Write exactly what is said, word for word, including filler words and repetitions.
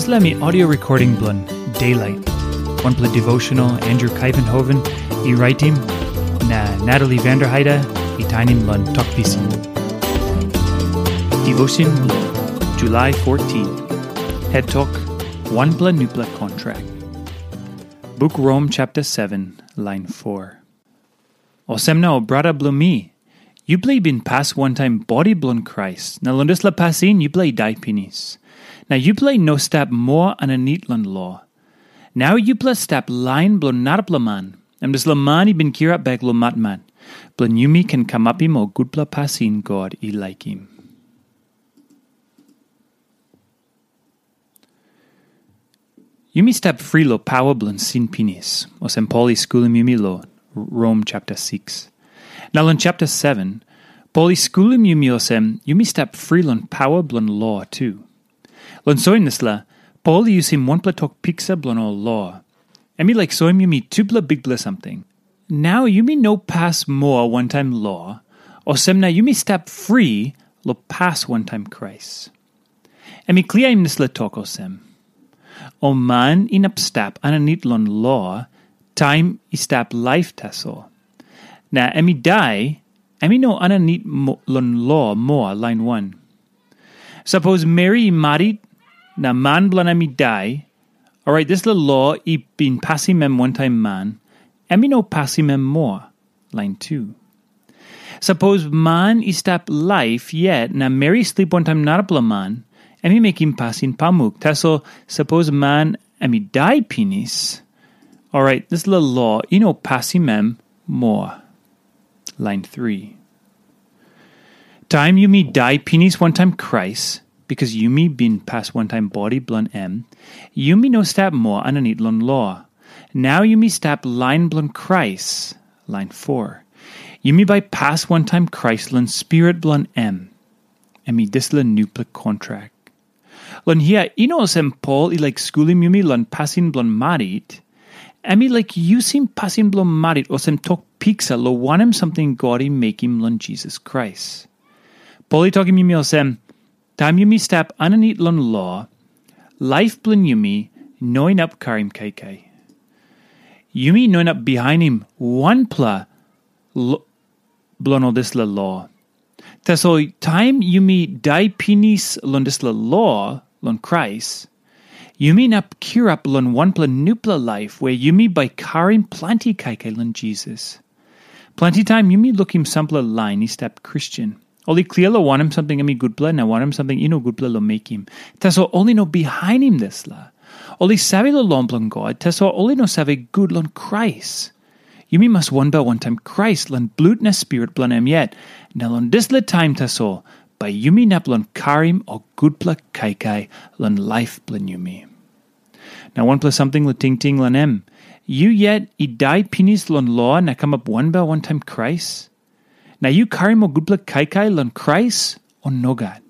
Dispela mi audio recording bilong Daylight, wanpela devotional Andrew Kaivenhoven i raitim, na Natalie Vanderheide i tainim long Tok Pisin. Devotion long July fourteen. Het tok, wanpela nupela kontrak. Buk Rom chapter seven, line four. Olsem na, ol brata bilong mi, yupela i bin pas wantaim bodi bilong Krais, na long dispela pasin yupela i dai pinis. Na yupela i no stap moa aninit long lo. Nau yupela stap lain bilong narapela man, em dispela man i bin kirap bek long matmat, bilong yumi ken kamapim ol gutpela pasin God i laikim. Yumi stap fri long pawa bilong sin pinis, olsem Pol i skulim yumi long Rom chapter six. Na long chapter seven, Pol i skulim yumi olsem yumi stap fri long pawa bilong lo tu. Long soim dispela, Pol i yusim wanpela tok piksa bilong ol lo. Em i laik soim yumi tupela bikpela samting. Nau yumi no pas moa wantaim lo, olsem na yumi stap fri long pas wantaim Krais. Em i kliaim dispela tok olsem, ol man inap stap aninit long lo, taim i stap laip tasol. Na em i dai, em i no aninit mo- long lo moa, lain wan. Sapos meri i marit, na man bilong em i dai, orait dispela lo i bin pasim em wantaim man, em i no pasim em moa, lain tu. Sapos man i stap laip yet na meri i slip wantaim narapela man, em i mekim pasin pamuk. Tasol sapos man em i dai pinis, orait dispela lo i no pasim em moa. Lain three. Taim yumi dai pinis wantaim Krais, bikas yumi bin pas wantaim bodi bilong em, yumi no stap moa aninit long lo. Nau yumi stap lain bilong Krais, lain four. Yumi bai pas wantaim Krais long Spirit bilong em. Em i dispela nupela kontrak. Long hia, i no olsem Pol i laik skulim yumi long pasin bilong marit. Em i laik yusim pasin bilong marit olsem tok piksa long wanem samting God i mekim long Jisas Krais. Pol i tokim yumi olsem, taim yumi stap aninit long lo, laip bilong yumi no inap karim kaikai. Yumi no inap bihainim wanpela lo- bilong ol dispela lo. Tasol taim yumi dai pinis long dispela lo long Krais, yumi inap kirap long wanpela nupela laip we yumi bai karim planti kaikai long Jisas. Planti taim yumi lukim sampela lain i stap Kristen. Ol i klia long wanem samting em i gutpela na wanem samting i no gutpela long mekim. Tasol ol i no bihainim dispela. Ol i save long lo bilong God, tasol ol i no save gut long Krais. Yumi mas wanbel wantaim Krais long blut na spirit bilong em yet. Na long dispela taim tasol, bai yumi inap long karim ol gutpela kaikai long laip bilong yumi. Na wanpela samting long tingting long em. Yu yet i dai pinis long lo na kamap wanbel wantaim Krais? Na yu karim ol gutpela kaikai long Krais, o nogat?